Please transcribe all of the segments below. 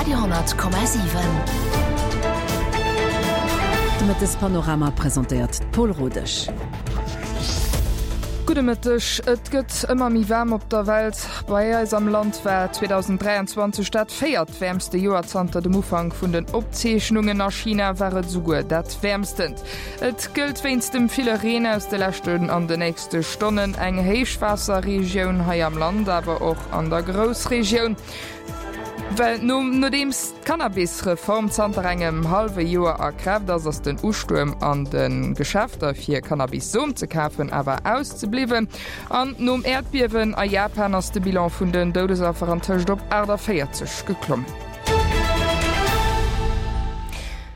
Radio 10,7. De Mëttespanorama presentéiert d'Paul Rodesch. Gudde Mëtteg. Et gëtt ëmmer méi waarm op der Welt. Bei eis am Land war 2023 dat véiertwäermste Joer zanter dem Ufank vun den Opzeechnungen. A China war et esouguer dat wäermstent. Et gëllt wéinst dem ville Reen aus de leschten an de nächste Stonnen eng Héichwaasserregioun hei am Land, awer och an der Groussregioun. Well nodeems d'Cannabis-Reform zanter engem hallwe Joer a Kraaft ass, ass den Ustuerm an de Geschäfter fir Cannabis-Som ze kafen awer auszebliwwen. An nom Äerdbiewen a Japan ass de Bilan vun den Doudesaffer antëscht op 48 geklommen.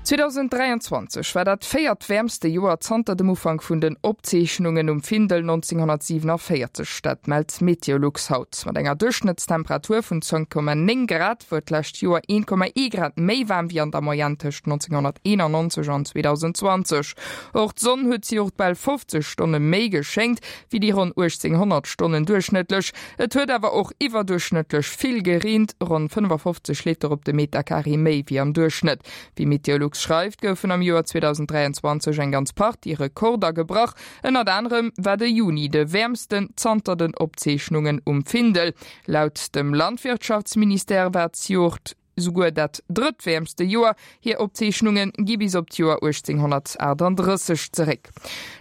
2023 war dat véiertwäermste Joer zanter dem Ufank vun den Opzeechnungen um Findel 1947. Dat mellt Meteolux haut. Mat enger Duerchschnëttstemperatur vun 10,9 Grad wor d'lescht Joer 1,1 Grad méi waarm wéi an der Moyenne tëscht 1991 an 2020. Och d'Sonn huet zejoert bal 50 Stonne méi geschéngt wéi déi ronn 1.800 Stonnen duerchschnëttlech. Et huet awer och iwwerduerchschnëttlech vill gereent, ronn 55 Liter op de Meterkaree méi wéi am Duerchschnëtt. Wéi Meteolux schreift, goufen am Joer 2023 eng ganz Partie Rekorder gebrach. Ënnert anerem war de Juni de wäermsten zanter den Opzeechnungen um Findel. Laut dem Landwirtschaftsministère war d'Joert souguer dat drëttwäermste Joer. Hir Opzeechnunge gi bis op d'Joer 1838 zeréck.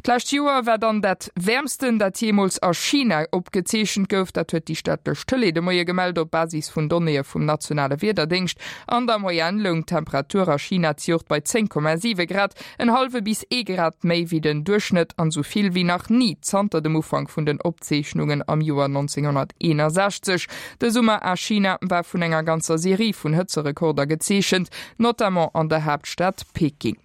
D'lescht Joer war dann dat wäermsten, dat jeemools a China opgezeechent gouf. Dat huet déi staatlech Tëlee de Moie gemellt, op Basis vun Donnéeë vum nationale Wiederdéngscht. An der Moyenne loung d'Temperatur a China zejoert bei 10,7 Grad, en hallwe bis ee Grad méi wéi den Duerchschnëtt an esou vill wéi nach ni zanter dem Ufank vun den Opzeechnungen am Joer 1961. De Summer a China war vun enger ganzer Serie vun Hëtzerekorder gezeechent, notamment an der Haaptstad Peking.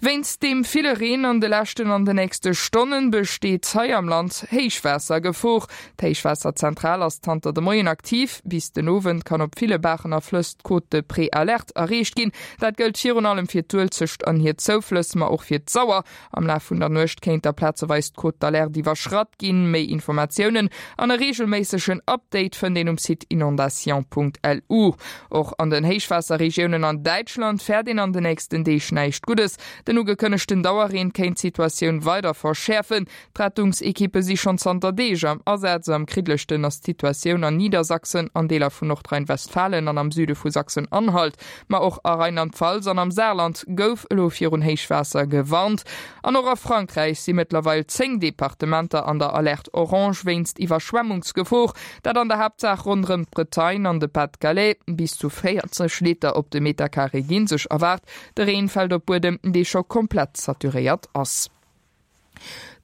Wéinst deem ville Reen an de leschten an de nächste Stonnen besteet hei am Land Héichwaassergefor. D'Héichwaasserzentral ass zanter de Moien aktiv. Bis den Owend kann op ville Baachen a Flëss d'Cote de Préalerte erreecht ginn. Dat gëllt virun allem fir d'Uelzecht an hir Zouflëss, ma och fir d'Sauer. Am Laf vun der Nuecht kéint da plazeweis d'Cote d'alerte iwwerschratt ginn. Méi Informatiounen an e reegelméissegen Update fënnt een um Site inondation.lu. Och an den Héichwaasserregiounen an Däitschland fäert een an de nächsten Deeg näischt Guddes. Den ugekënnegten Dauerreen kéint d'Situatioun weider verschäerfen. D'Rettungsekippe si schonn zanter Deeg am Asaz. Am kriddlechten ass d'Situatioun an Niedersachsen, an Deeler vun Nordrhein-Westfalen an am Süde vu Sachsen-Anhalt. Ma och a Rheinland-Pfalz an am Saarland gouf elo virun Héichwaasser gewarnt. An och a Frankräich si mëttlerweil 10 Departementer an der Alerte orange wéinst Iwwerschwemmungsgefor. Dat an der Haaptsaach ronderëm d'Bretagne an de Pas-de-Calais. Bis zu 40 Liter op de Meterkaree gi sech erwaart. De Reen fält op Buedem, dee scho komplett saturéiert ass.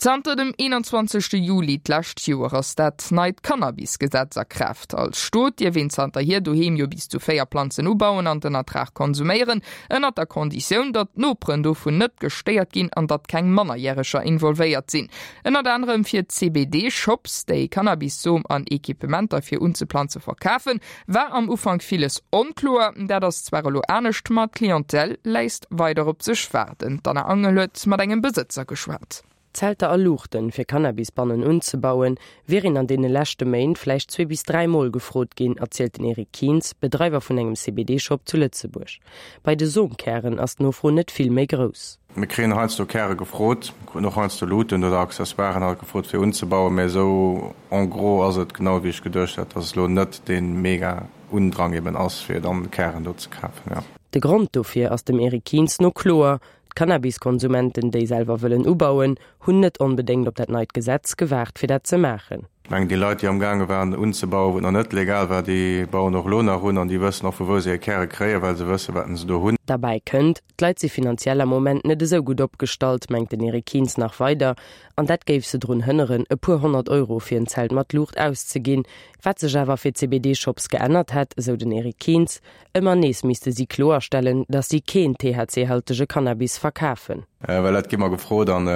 Zanter dem 21. Juli d'lescht Joer ass dat neit Cannabis-Gesetz a Kraaft. Als Stot dierf een zanterhier doheem jo bis zu 4 Planzen ubauen an den Ertrag konsuméieren, ënnert der Konditioun, datt d'Noperen dovun net gestéiert ginn an datt keng Mannerjäreger involvéiert sinn. Ënnert anerem fir CBD-Shops, déi Cannabis-Som an Equipementer fir unzeplanze verkafen, War am Ufank villes onkloer, dat ass zwar elo anescht, ma d'Clientèle léisst weider op sech waarden. D'Anna Angel huet mat engem Besëtzer geschwat. Zelter a Luuchten, fir Cannabisbannen unzebauen, wier een an deene leschte Méint vläicht zwee bis 3 Mol gefrot ginn, erzielt den Eric Kientz, Bedreiwer vun engem CBD-Shop zu Lëtzebuerg. Bei de Somkären ass d'Nofro net vill méi grouss. Mir kréien heiansdo Käre gefrot, mir kruten och heiansdo Luuten oder Accessoiren halt gefrot fir unzebauen, mä esou en gros ass et genau wéi ech geduecht hat, dass et elo net dee mega Undrang eben ass fir dann Kären do ze kafen, jo. De Grond dofir ass dem Eric Kientz no kloer, D'Cannabiskonsumenten, déi selwer wëllen ubauen, hunn net onbedéngt op dat neit Gesetz gewaart fir dat ze maachen. Ech mengen déi Leit déi amgaange waren unzebauen, wou et nach net legal war, déi bauen och elo nach un an déi wëssen och vu wou se hir Käre kréien, well se wëssen wat se do hunn. Derbäi kënnt, d'Leit si finanziell am Moment net esou gutt opgestallt, mengt den Eric Kientz nach weider, an dat géif se drun hënneren, e puer 100 Euro fir en Zelt mat Luucht auszeginn. Wat sech awer fir CBD-Shops geännert hätt, esou den Eric Kientz, Ëmmer nees misste si kloerstellen, datt si keen THC-haltege Cannabis verkafen. Well dat gi mer gefrot an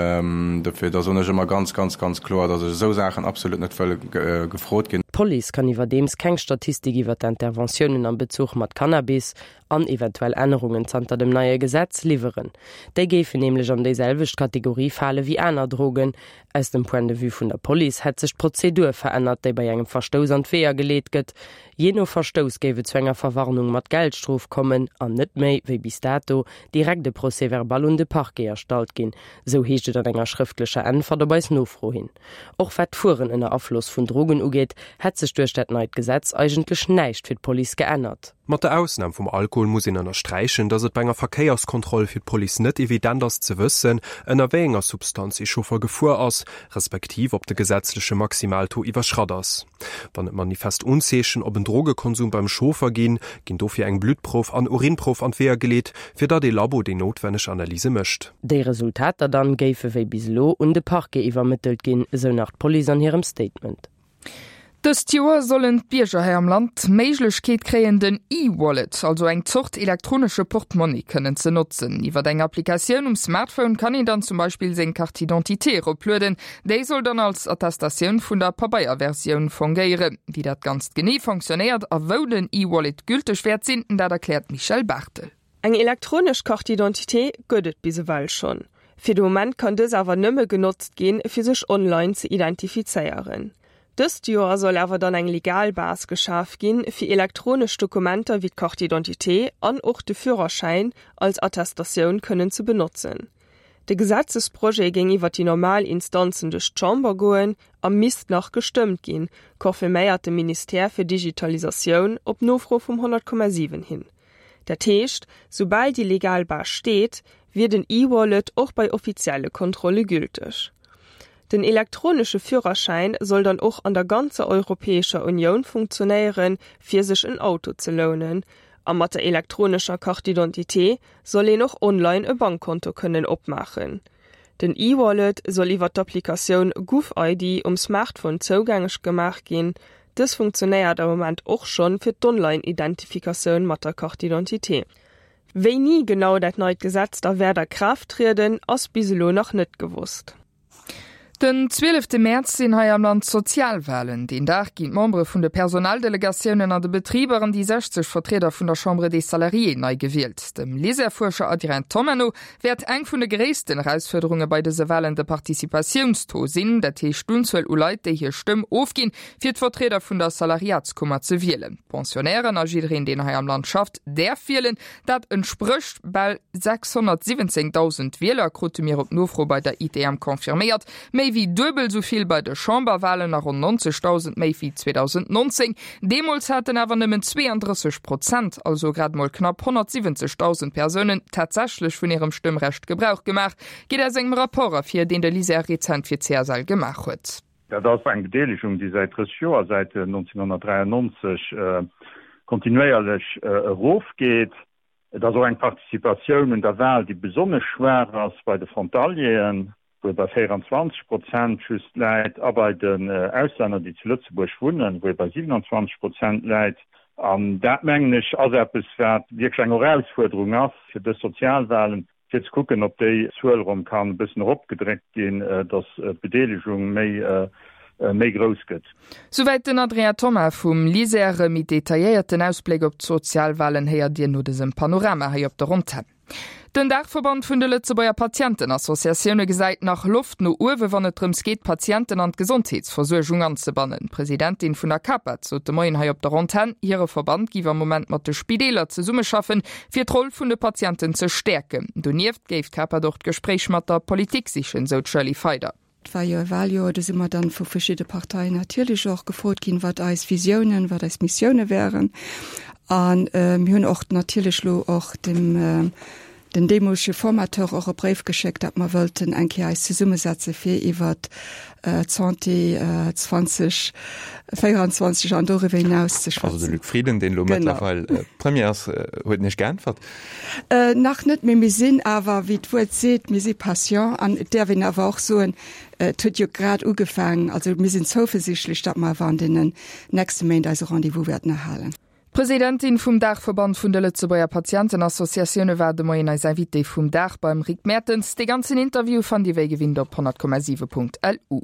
dofir, da soen ech ëmmer ganz, ganz, ganz kloer, datt ech esou Saachen absolut net wëll gefrot ginn. D'Police kann iwwerdeems keng Statistik iwwer d'Interventiounen am Bezuch mat Cannabis an eventuell Ännerungen zanter dem neie Gesetz liwweren. Déi géifen nämlech an déiselwecht Kategorie fale wéi aner Drogen. Aus dem Point de vue vun der Police hätt sech d'Prozedur verännert, déi bei engem Verstouss an d'Weeër geleet gëtt. Jee no Verstouss géif et zu enger Verwarnung mat Geldstrof kommen an net méi, wéi bis dato, direkt e Procès-verbal un de Parquet erstallt ginn, sou heescht et an enger schrëftlecher Äntwert op eis Nofro hin. Och wat d'Fueren ënner Afloss vun Drogen ugeet, hätt sech duerch dat neit Gesetz eigentlech näischt fir d'Police geännert. Mat der Ausnam vum Alkohol muss een ënnersträichen, datt et bei enger Verkéierskontroll fir d'Police net evident ass ze wëssen, ënner wéi enger Substanz ee Chauffer gefuer ass, respektiv ob de gesetzleche Maximaltaux iwwerschratt ass. Wann et manifest Unzeechen op en Drogekonsum beim Chauffer ginn, ginn dofir eng Bluttprouf an Urinprouf an d'Weeër geleet, fir datt ee Labo déi noutwenneg Analyse mécht. Déi Resultater dann géife wéi bis elo un de Parquet iwwermëttelt ginn, esou nach d'Police an hirem Statement. Dëst Joer sollen d'Bierger hei am Land d'Méiglechkeet kréien, den E-Wallet, also eng Zort elektronesche Portmonni, kënnen ze notzen. Iwwer eng Applikatioun um Smartphone kann een dann zum Beispill seng Carte d'identité eroplueden. Déi soll dann als Attestatioun vun der Pabeierversioun fongéieren. Wéi dat Ganzt genee fonctionnéiert a wou den E-Wallet gülteg wäert sinn, dat erkläert d'Michèle Barthel. Eng elektronesch Carte d'identité gëtt et bis ewell schonn. Fir de Moment kann dës awer nëmme genotzt ginn, fir sech online ze identifizéieren. Dëst Joer soll awer dann eng legal Base geschaf ginn, fir elektronesch Dokumenter wéi d'Carte d'identité an och de Führerschäin als Attestatioun kënnen ze benotzen. De Gesetzesprojet géing iwwer déi normal Instanzen duerch d'Chamber goen a misst nach gestëmmt ginn, confirméiert de Ministère fir Digitalisatioun op Nofro vum 100,7 hin. Dat heescht, soubal déi legal Base steet, wier den E-Wallet och bei offizielle Kontrolle gülteg. Den elektronesche Führerschäin soll dann och an der ganzer Europäescher Unioun funktionéieren, fir sech en Auto ze lounen. A mat der elektronescher Carte d'identité soll een och online e Bankkonto kënnen opmaachen. Den E-Wallet soll iwwer d'Applikatioun GouvID um Smartphone zougänglech gemaach ginn. Dës funktionéiert am Moment och schonn fir d'Online-Identifikatioun mat der Carte d'identité. Wéini genau dat neit Gesetz da wäert a Kraaft trieden, ass bis elo nach net gewosst. Den zwielefte Mäerz sinn hei am Land d'Sozialwalen. Deen Dag ginn d'Membere vun de Personaldelegatiounen an de Betriber an déi 60 Vertrieder vun der Chambre des Salariés nei gewielt. Dem LISER-Fuerscher Adrien Thomma no wäert eng vun de gréissten Erausfuerderunge bei dëse Walen de Participatiounstaux sinn, dat heescht d'Unzuel u Leit, déi hir Stëmm ofginn, fir d'Vertrieder vun der Salariatskummer ze wielen. D'Pensionnairen a jiddereen, deen hei am Land schafft, däerf wielen. Dat entsprécht bal 617.000 Wieler, krute mir op Nofro bei der ITM confirméiert. Méi wéi duebel esou vill bei de Chamberwalen a ronn 90.000 méi wéi 2019. Deemools haten awer nëmmen 32 Prozent, also grad mol knapp 170.000 Persounen, tatsächlech vun hirem Stëmmrecht Gebrauch gemaach, geet aus engem Rapport ervir, deen de LISER rezent fir d'CSL gemaach huet. Dat ass eng Bedeelegung, déi säit 30 Joer, säit 1993, kontinuéierlech erofgeet. Et ass och eng Participatioun un der Wal, déi besonnesch schwaach ass bei de Frontalieren, wou e bei 24 Prozent just läit, a bei den Auslänner, déi zu Lëtzebuerg wunnen, wou e bei 27 Prozent läit. An dat, mengen ech, ass eppes, wat wierklech eng Erausfuerderung ass fir dës Sozialwalen, fir ze kucken, ob déi Zuel erëm kann e bëssen eropgedréckt ginn, datt d'Bedeelegung méi méi grouss gëtt. Souwäit den Adrien Thoma vum LISER. E méi detailléierten Ausbléck op d'Sozialwalen héiert Dir no dësem Panorama hei op der Antenn. Den Daachverband vun de Lëtzebuerger Patientenassociatioune gesäit nach Loft no uewe wann et drëms geet, d'Patienten an d'Gesondheetsversuergung anzebannen. D'Presidentin vun der CAPAD sot de Moien hei op der Antenn, hire Verband géif am Moment mat de Spideeler zesummeschaffen, fir d'Roll vun de Patienten ze stäerken. Donieft géif d'CAPAD och d'Gespréich mat der Politik sichen, sou d'Shirley Feider. Et war jo e Wahljoer, do si mer dann vu verschidde Parteien natierlech och gefrot ginn, wat eis Visiounen, wat eis Missioune wären. A mir hunn och natierlech elo och dem den deemolege Formateur och e Bréif geschéckt, datt mer wëllten eng Kéier eis zesummesetze fir iwwert d'Santé 2024 an doriwwer hinaus ze schwätzen. Also de Luc Frieden, deen elo mëttlerweil Premier ass, huet Iech geäntwert? Nach net, mee mir sinn awer, wéi d'Wuert seet, mir si patient an et däerf een awer och soen, et huet jo grad ugefaangen. Also mir sinn zouversichtlech, datt mer awer an deenen nächste Méint eise Rendez-vous wäerten erhalen. D'Presidentin vum Daachverband vun de Lëtzebuerger Patientenassociatioune war de Moien eis Invitée vum Dag beim Rick Mertens. Dee ganzen Interview fannt Dir wéi gewinnt op 100,7.lu.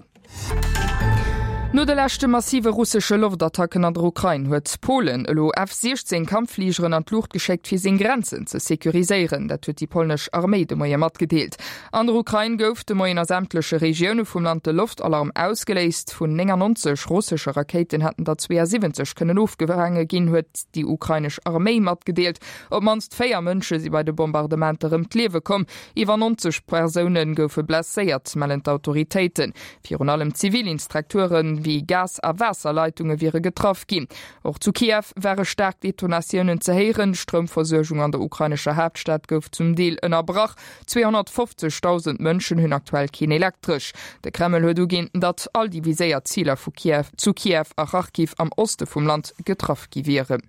No de leschte massive russesche Loftattacken an der Ukrain huet Polen elo F-16 Kampffligeren an d'Luucht geschéckt, fir seng Grenzen ze securiséieren. Dat huet déi polnesch Arméi de Moie matgedeelt. An der Ukrain gouf de Moien a sämtleche Regioune vum Land de Loftalarm ausgeléist. Vun 99 russesche Rakéiten hätten der 72 kënnen ofgefaange ginn, huet déi ukrainesch Arméi matgedeelt. Op d'mannst 4 Mënsche si bei de Bombardementer ëm d'Liewe komm. Iwwer 90 Persoune goufe blesséiert, mellen d'Autoritéiten. Virun allem zivil Instrukture wéi Gas a Waasserleitunge wiere getraff ginn. Och zu Kiew ware staark Detonatiounen ze héieren. D'Stroumversuergung an der ukrainescher Haaptstad gouf zum Deel ënnerbrach. 250.000 Mënschen hunn aktuell keen Elektresch. De Kreml huet uginn, datt all déi viséiert Ziler vu Kiew zu Kiew a Charkiw am Oste vum Land getraff gi wieren.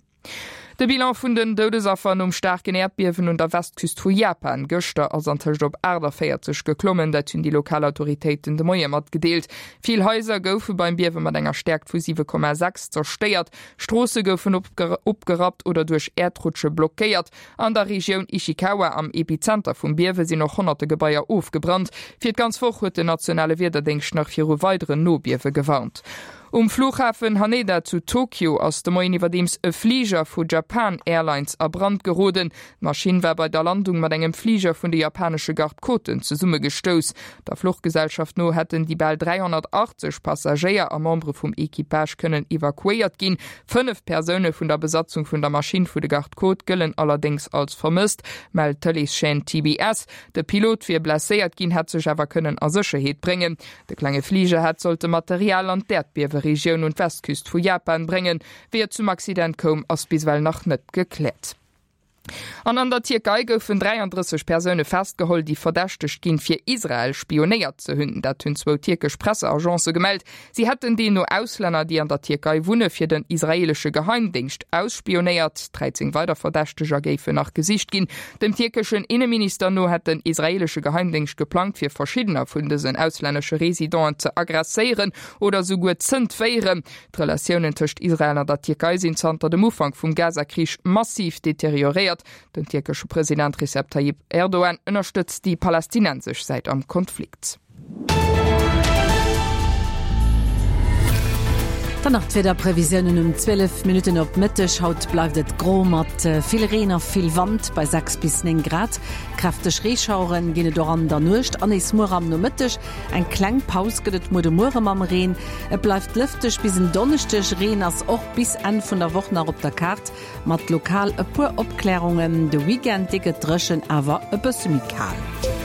De Bilan vun den Doudesaffer nom staarken Äerdbiewen un der Westküst vu Japan gëschter ass antëscht op 48 geklommen. Dat hunn déi lokal Autoritéiten de Moie matgedeelt. Vill Haiser goufe beim Biewe mat enger Stäerkt vu 7,6 zerstéiert. Stroosse goufen opgerappt oder duerch Äerdrutsche blockéiert. An der Regioun Ishikawa am Epizenter vum Biewe sinn och honnerte Gebaier ofgebrannt. Fir d'ganz Woch huet den nationale Wiederdéngscht nach viru weideren Nobiewe gewarnt. Um Flughafen Haneda zu Tokio ass de Moien iwwerdeems e Fliger vu Japan Airlines a Brand geroden. D'Maschinn war bei der Landung mat engem Fliger vun de japanesche Garde-Côten zesummegestouss. Der Fluchgesellschaft no hätten déi bal 380 Passagéier a Membere vum Equipage kënnen evakuéiert ginn. 5 Persoune vun der Besatzung vun der Maschinn vu de Garde-Côte gëllen allerdéngs als vermësst, mellt d'Tëleeschaîne TBS. De Pilot wier blesséiert ginn, hätt sech awer kënnen a Sécherheet bréngen. De klenge Fliger hätt sollte Material an d'Äerdbieweregioun un d'Westküst vu Japan bréngen. Wéi et zum Accident koum, ass bis ewell nach net gekläert. An an der Tierkei goufen 33 Persoune festgeholl, déi verdächtegt ginn, fir Israel spionéiert ze hunn. Dat hunn zwou tierkesch Presseagencë gemellt. Si hätten deemno Auslänner, déi an der Tierkei wunne, fir den israeelesche Geheimdéngscht ausspionéiert. 13 weider Verdächteger géifen nach gesicht ginn. Dem tierkeschen Inneminister no hätt den israeelesche Geheimdéngscht geplangt, fir verschiddener vun dësen auslännesche Residenten ze aggresséieren oder souguer z'entféieren. D'Relatiounen tëscht Israel an der Tierkei sinn zanter dem Ufank vum Gaza-Krich massiv deterioréiert. Den tierkesche President Recep Tayyip Erdogan ënnerstëtzt déi palästinensesch Säit am Konflikt. Dann nach d'Wiederprevisiounen um 12 Minutten op Mëtteg. Haut bleift et gro mat vill Reen a vill Wand bei 6 bis 9 Grad. Kräfteg Reeschauere ginn et och an der Nuecht an nees muer am Nomëtteg. Eng kleng Paus gëtt et muer de Muere mam Reen. Et bleift lëfteg bis en Donneschdeg. Reen ass och bis Enn vun der Woch nach op der Kaart, mat lokal e puer Opklärungen. De Weekend, dee gëtt dréchen, awer e bësse méi kal.